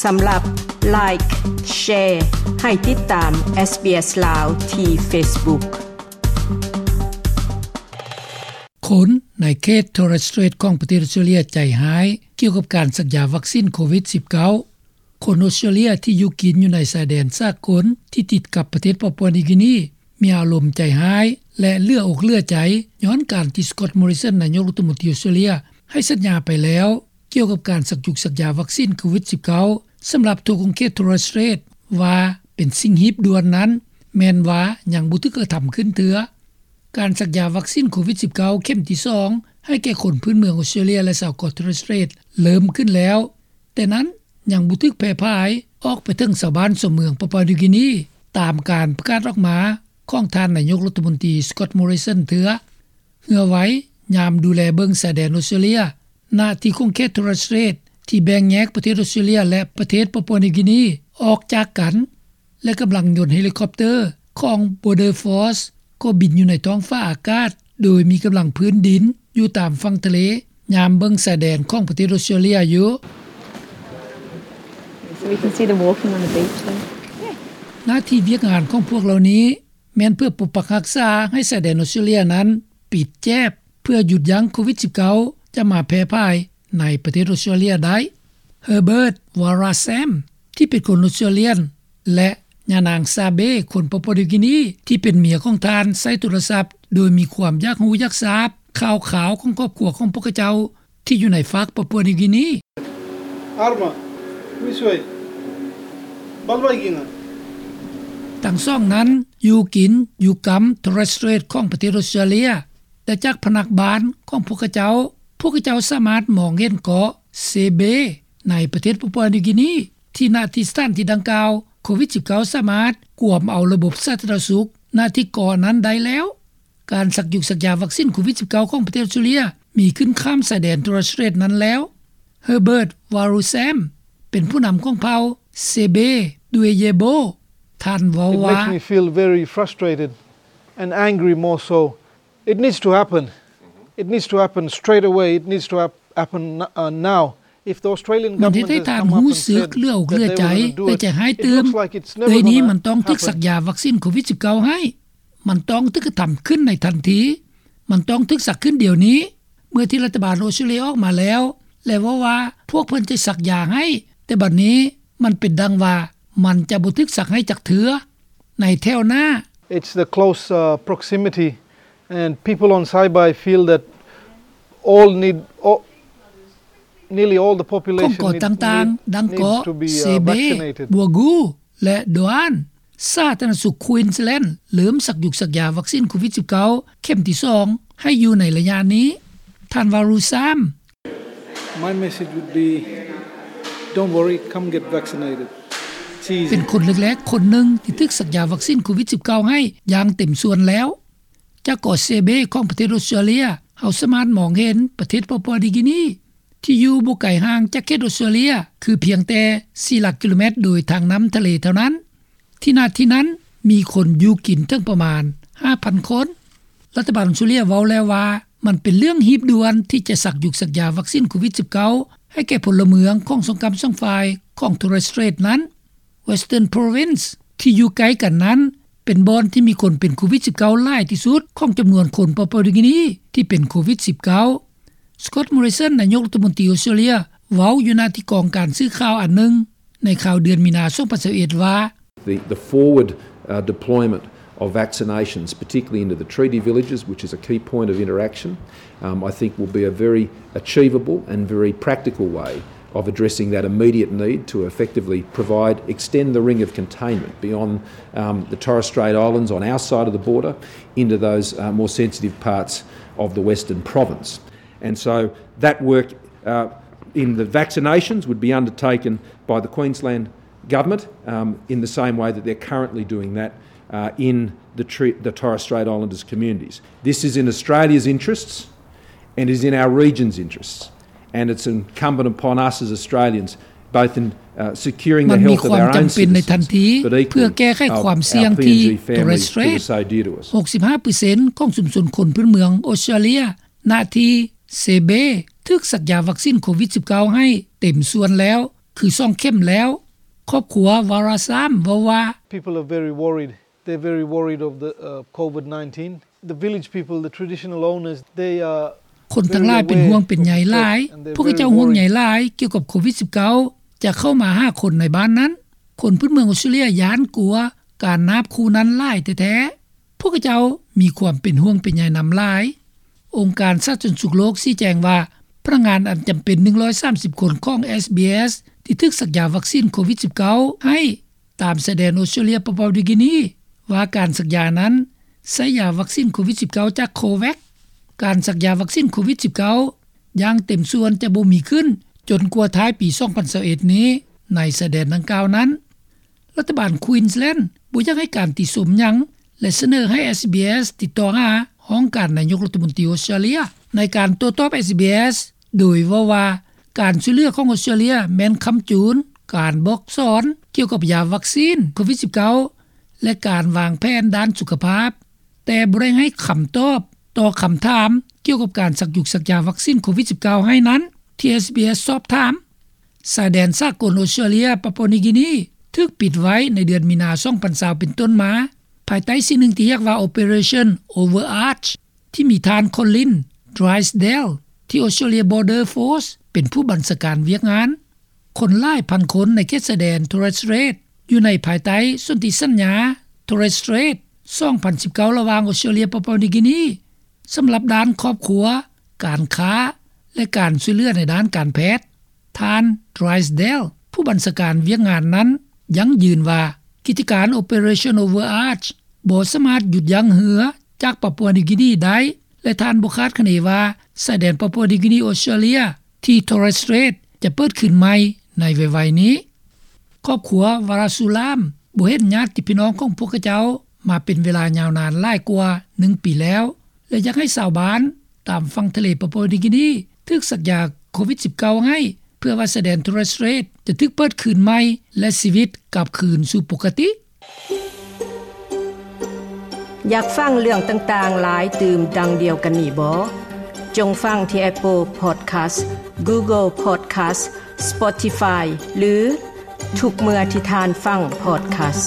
ສຳລັບ Like, Share ໃຫ້ຕິດຕາມ SBS ລາວ ທີ່ Facebook. ຄົນໃນເຂດ Torres Strait ຂອງປະເທດອົດສະຕຣາເລຍໃຈຮ້າຍກ່ຽວກັບການສັກຢາວັກຊິນໂຄວິດສິບເກົ້າ. ຄົນອົດສະຕຣາເລຍທີ່ຢູ່ກິນຢູ່ໃນຊາຍແດນສາກົນທີ່ຕິດກັບປະເທດປາປົວນິວກີນີ ມີອາລົມໃຈຮ້າຍ ແລະ ເຫຼືອອົກເຫຼືອໃຈ ຍ້ອນການທີ່ Scott Morrison ນາຍົກລັດຖະມົນຕີອົດສະຕຣາເລຍ ໃຫ້ສັນຍາໄປແລ້ວ ກ່ຽວກັບການສັກຢຸກສັກຢາວັກຊິນໂຄວິດສິບເກົ້າ ສຳລັບທົ່ວຂົງເຂດ Torres Strait ວ່າເປັນສິ່ງຮີບດ່ວນນັ້ນ ແມ່ນວ່າຍັງບໍ່ຖືກກະທຳຂຶ້ນເທື່ອ. ການສັກຢາວັກຊິນໂຄວິດສິບເກົ້າ ເຂັມທີສອງ ໃຫ້ແກ່ຄົນພື້ນເມືອງອົດສະຕຣາເລຍ ແລະ ຊາວເກາະ Torres Strait ເລີ່ມຂຶ້ນແລ້ວ, ແຕ່ນັ້ນຍັງບໍ່ຖືກແຜ່ຜາຍອອກໄປເຖິງຊາວບ້ານຊາວເມືອງປາປົວນິວກີນີ ຕາມການປະກາດອອກມາຂອງທ່ານນາຍົກລັດຖະມົນຕີ Scott Morrison ເທື່ອ. ເຮືອໄວຍາມດູແລເບິ່ງຊາຍແດນອົດສະຕຣາເລຍ ນະທີ່ຂົງເຂດ Torres Strait ທີ່ແບ່ງແຍກປະເທດອົດສະຕຣາເລຍ ແລະ ປະເທດປາປົວນິວກີນີ ອອກຈາກກັນ ແລະ ກຳລັງຍົນເຮລິຄອບເຕີຂອງ Border Force ກໍບິນຢູ່ໃນທ້ອງຟ້າອາກາດ ໂດຍມີກຳລັງພື້ນດິນຢູ່ຕາມຝັ່ງທະເລ ຍາມເບິ່ງຊາຍແດນຂອງປະເທດອົດສະຕຣາເລຍຢູ່. So we can see them walking on the beach there. ໜ້າທີ່ວຽກງານຂອງພວກເຫຼົ່ານີ້ ແມ່ນເພື່ອປົກປັກຮັກສາໃຫ້ຊາຍແດນອົດສະຕຣາເລຍນັ້ນປິດແຈບ ເພື່ອຢຸດຢັ້ງໂຄວິດສິບເກົ້າຈະມາແຜ່ຜາຍໃນປະເທດອົດສະຕຣາເລຍໄດ້. Herbert Warasam ທີ່ເປັນຄົນອົດສະຕຣາເລຍ ແລະ ຍານາງ Sabe ຄົນປາປົວນິວກີນີ ທີ່ເປັນເມຍຂອງທ່ານ ໃຊ້ໂທລະສັບ ໂດຍມີຄວາມຢາກຮູ້ຢາກຊາບຂ່າວຄາວຂອງຄອບຄົວຂອງພວກເຂົາເຈົ້າ ທີ່ຢູ່ໃນຟາກປາປົວນິວກີນີ. Arma, this way. Balbaigina. ທັງສອງນັ້ນຢູ່ກິນຢູ່ກຳ Torres Strait ຂອງປະເທດອົດສະຕຣາເລຍ ແຕ່ຈາກພະນັກບ້ານຂອງພວກເຂົາເຈົ້າ, ພວກເຂົາເຈົ້າສາມາດມອງເຫັນເກາະ Sabe ໃນປະເທດປາປົວນິວກີນີ ທີ່ນະທີ່ສະຖານທີ່ດັ່ງກ່າວ ໂຄວິດສິບເກົ້າສາມາດກວມເອົາລະບົບສາທາລະນະສຸກນະທີ່ເກາະນັ້ນໄດ້ແລ້ວ. ການສັກຢຸກສັກຢາວັກຊິນໂຄວິດສິບເກົ້າຂອງປະເທດອົດສະຕຣາເລຍມີຂຶ້ນຂ້າມຊາຍແດນ Torres Strait ນັ້ນແລ້ວ. Herbert Warasam ເປັນຜູ້ນຳຂອງເຜົ່າ Sabe Dwayebo. ທ່ານເວົ້າວ່າ It makes me feel very frustrated and angry more so. It needs to happen. It needs to happen straight away. It needs to hap- happen n- uh, now. If the Australian government has come up and said that they will do it, ມັນເຮັດໃຫ້ທ່ານຮູ້ສຶກເຫຼືອອົກເຫຼືອໃຈ ແລະ ໃຈຮ້າຍຕື່ມ. ດຽວນີ້ມັນຕ້ອງຖືກສັກຢາວັກຊິນໂຄວິດສິບເກົ້າໃຫ້. ມັນຕ້ອງຖືກກະທຳຂຶ້ນໃນທັນທີ. ມັນຕ້ອງຖືກສັກຂຶ້ນດຽວນີ້. ເມື່ອທີ່ລັດຖະບານອົດສະຕຣາເລຍອອກມາແລ້ວ ແລະ ເວົ້າວ່າພວກເພິ່ນຈະສັກຢາໃຫ້, ແຕ່ບັດນີ້ມັນເປັນດັ່ງວ່າມັນຈະບໍ່ຖືກສັກໃຫ້ຈັກເທື່ອໃນແຖວໜ້າ. It's the close, uh, proximity and people on Saibai feel that all need, all, nearly all the population ຂອງເກາະຕ່າງໆ ດັ່ງເກາະ Sabe, Bwagu ແລະ Doan. ສາທາລະນະສຸກ Queensland ເລີ່ມສັກຢຸກສັກຢາວັກຊິນໂຄວິດສິບເກົ້າເຂັມທີສອງໃຫ້ຢູ່ໃນໄລຍະນີ້. ທ່ານ Warasam. My message would be, don't worry, come get vaccinated. It's easy. ເປັນຄົນແລກໆຄົນໜຶ່ງທີ່ຖືກສັກຢາວັກຊິນໂຄວິດສິບເກົ້າໃຫ້ຢ່າງເຕັມສ່ວນແລ້ວ. ຈາກເກາະ Sabe ຂອງປະເທດອົດສະຕຣາເລຍ ເຮົາສາມາດມອງເຫັນປະເທດປາປົວນິວກີນີ ທີ່ຢູ່ບໍ່ໄກຫ່າງຈາກເຂດອົດສະຕຣາເລຍ ຄືພຽງແຕ່ສີ່ຫຼັກກິໂລແມັດໂດຍທາງນ້ຳທະເລເທົ່ານັ້ນ. ທີ່ນະທີ່ນັ້ນມີຄົນຢູ່ກິນເຖິງປະມານຫ້າພັນຄົນ. ລັດຖະບານອົດສະຕຣາເລຍເວົ້າແລ້ວວ່າ ມັນເປັນເລື່ອງຮີບດ່ວນທີ່ຈະສັກຢຸກສັກຢາວັກຊິນໂຄວິດສິບເກົ້າໃຫ້ແກ່ພົນລະເມືອງຂອງສອງກ້ຳສອງຝ່າຍຂອງ Torres Strait ນັ້ນ. Western Province ທີ່ຢູ່ໃກ້ກັນນັ້ນ ເປັນບ່ອນທີ່ມີຄົນເປັນໂຄວິດສິບເກົ້າຫຼາຍທີ່ສຸດຂອງຈຳນວນຄົນປາປົວນິວກີນີທີ່ເປັນໂຄວິດສິບເກົ້າ. Scott Morrison ນາຍົກລັດຖະມົນຕີອົດສະຕຣາເລຍ ເວົ້າຢູ່ນະທີ່ກອງການສື່ຂ່າວອັນໜຶ່ງໃນຂ່າວເດືອນມີນາ ສອງພັນຊາວເອັດ ວ່າ The, the forward, uh, deployment of vaccinations, particularly into the treaty villages, which is a key point of interaction, um, I think will be a very achievable and very practical way of addressing that immediate need to effectively provide, extend the ring of containment beyond, um, the Torres Strait Islands on our side of the border into those, uh, more sensitive parts of the Western Province. And so that work, uh, in the vaccinations would be undertaken by the Queensland government, um, in the same way that they're currently doing that, uh, in the, the Torres Strait Islanders communities. This is in Australia's interests and is in our region's interests. And it's incumbent upon us as Australians, both in, uh, securing the health of our own citizens, but equally our, our P N G families to the Saydores. ມັນມີຄວາມຈຳເປັນໃນທັນທີເພື່ອແກ້ໄຂຄວາມສ່ຽງທີ່ Torres Strait. ຫົກສິບຫ້າເປີເຊັນຂອງຊຸມຊົນຄົນພື້ນເມືອງອົດສະຕຣາເລຍ ນະທີ່ Sabe ຖືກສັກຢາວັກຊິນໂຄວິດສິບເກົ້າໃຫ້ເຕັມສ່ວນແລ້ວ, ຄືສອງເຂັມແລ້ວ. ຄອບຄົວວາຣາຊາມເວົ້າວ່າ People are very worried. They're very worried of the, uh, COVID nineteen. The village people, the traditional owners, they are ຄົນທັງຫຼາຍເປັນຫ່ວງເປັນໃຍຫຼາຍ. ພວກເຂົາເຈົ້າຫ່ວງໃຍຫຼາຍກ່ຽວກັບໂຄວິດສິບເກົ້າ ຈະເຂົ້າມາຫາຄົນໃນບ້ານນັ້ນ. ຄົນພື້ນເມືອງອອສເຕຣເລັຍຢ້ານກົວການນາບຄູ່ນັ້ນຫຼາຍແທ້ໆ. ພວກເຂົາເຈົ້າມີຄວາມເປັນຫ່ວງເປັນໃຍນຳຫຼາຍ. ອົງການສາທາລະນະສຸກໂລກຊີ້ແຈງວ່າ ພະນັກງານອັນຈຳເປັນໜຶ່ງຮ້ອຍສາມສິບຄົນຂອງ SBS ທີ່ຖືກສັກຢາວັກຊີນໂຄວິດສິບເກົ້າໃຫ້ ຕາມຊາຍແດນອອສເຕຣເລັຍປາປົວນິວກິນີ ວ່າການສັກຢານັ້ນໃຊ້ຢາວັກຊີນໂຄວິດສິບເກົ້າຈາກ COVAX. ການສັກຢາວັກຊີນໂຄວິດສິບເກົ້າຢ່າງເຕັມສ່ວນຈະບໍ່ມີຂຶ້ນຈົນກວ່າທ້າຍປີສອງພັນຊາວເອັດນີ້ ໃນຊາຍແດນດັ່ງກ່າວນັ້ນ. ລັດຖະບານ Queensland ບໍ່ຢາກໃຫ້ການຕິຊົມຫຍັງ ແລະ ສະເໜີໃຫ້ SBS ຕິດຕໍ່ຫາຫ້ອງການນາຍົກລັດຖະມົນຕີອອສເຕຣເລັຍ ໃນການໂຕ້ຕອບ SBS ໂດຍເວົ້າວ່າ ການຊ່ວຍເຫຼືອຂອງອອສເຕຣເລັຍແມ່ນຄ້ຳຈູນການບອກສອນກ່ຽວກັບຢາວັກຊີນໂຄວິດສິບເກົ້າ ແລະ ການວາງແຜນດ້ານສຸຂະພາບ, ແຕ່ບໍ່ໄດ້ໃຫ້ຄຳຕອບຕໍ່ຄຳຖາມກ່ຽວກັບການສັກຢາວັກຊີນໂຄວິດສິບເກົ້າໃຫ້ນັ້ນ ທີ່ SBS ສອບຖາມ. ຊາຍແດນສາກົນອອສເຕຣເລັຍປາປົວນິວກິນີ ຖືກປິດໄວ້ໃນເດືອນມີນາ ສອງພັນຊາວ ເປັນຕົ້ນມາ ພາຍໃຕ້ສິ່ງໜຶ່ງທີ່ຮຽກວ່າ Operation Overarch ທີ່ມີທ່ານ Colin Drysdale ທີ່ Australia Border Force ເປັນຜູ້ບັນຊາການວຽກງານ. ຄົນຫຼາຍພັນຄົນໃນເຂດຊາຍແດນ Torres Strait ຢູ່ໃນພາຍໃຕ້ສົນທິສັນຍາ Torres Strait ສອງພັນສິບເກົ້າ ລະຫວ່າງອອສເຕຣເລັຍປາປົວນິວກິນີ ສຳລັບດ້ານຄອບຄົວ, ການຄ້າ ແລະ ການຊ່ວຍເຫຼືອໃນດ້ານການແພດ. ທ່ານ Drysdale ຜູ້ບັນຊາການວຽກງານນັ້ນ ຢັ້ງຢືນວ່າ ກິດຈະການ Operation Overarch ບໍ່ສາມາດຢຸດຢັ້ງເຮືອຈາກປາປົວນິວກິນີໄດ້ ແລະ ທ່ານບໍ່ຄາດຄະເນວ່າ ຊາຍແດນປາປົວນິວກິນີ-ອອສເຕຣເລັຍ ທີ່ Torres Strait ຈະເປີດຄືນໃໝ່ໃນໄວໆນີ້. ຄອບຄົວວາຣາຊູລາມ ບໍ່ເຫັນຍາດຕິພີ່ນ້ອງຂອງພວກເຂົາເຈົ້າມາເປັນເວລາຍາວນານຫຼາຍກວ່າໜຶ່ງປີແລ້ວ ແລະ ຢາກໃຫ້ຊາວບ້ານຕາມຝັ່ງທະເລປາປົວນິວກິນີຖືກສັກຢາໂຄວິດສິບເກົ້າໃຫ້ ເພື່ອວ່າຊາຍແດນ Torres Strait ຈະຖືກເປີດຄືນໃໝ່ ແລະ ຊີວິດກັບຄືນສູ່ປົກກະຕິ. ຢາກຟັງເລື່ອງຕ່າງໆຫຼາຍຕື່ມດັ່ງດຽວກັນນີ້ບໍ? ຈົ່ງຟັງທີ່ Apple Podcast, Google Podcast, Spotify ຫຼື ທຸກເມື່ອທີ່ທ່ານຟັງ podcast.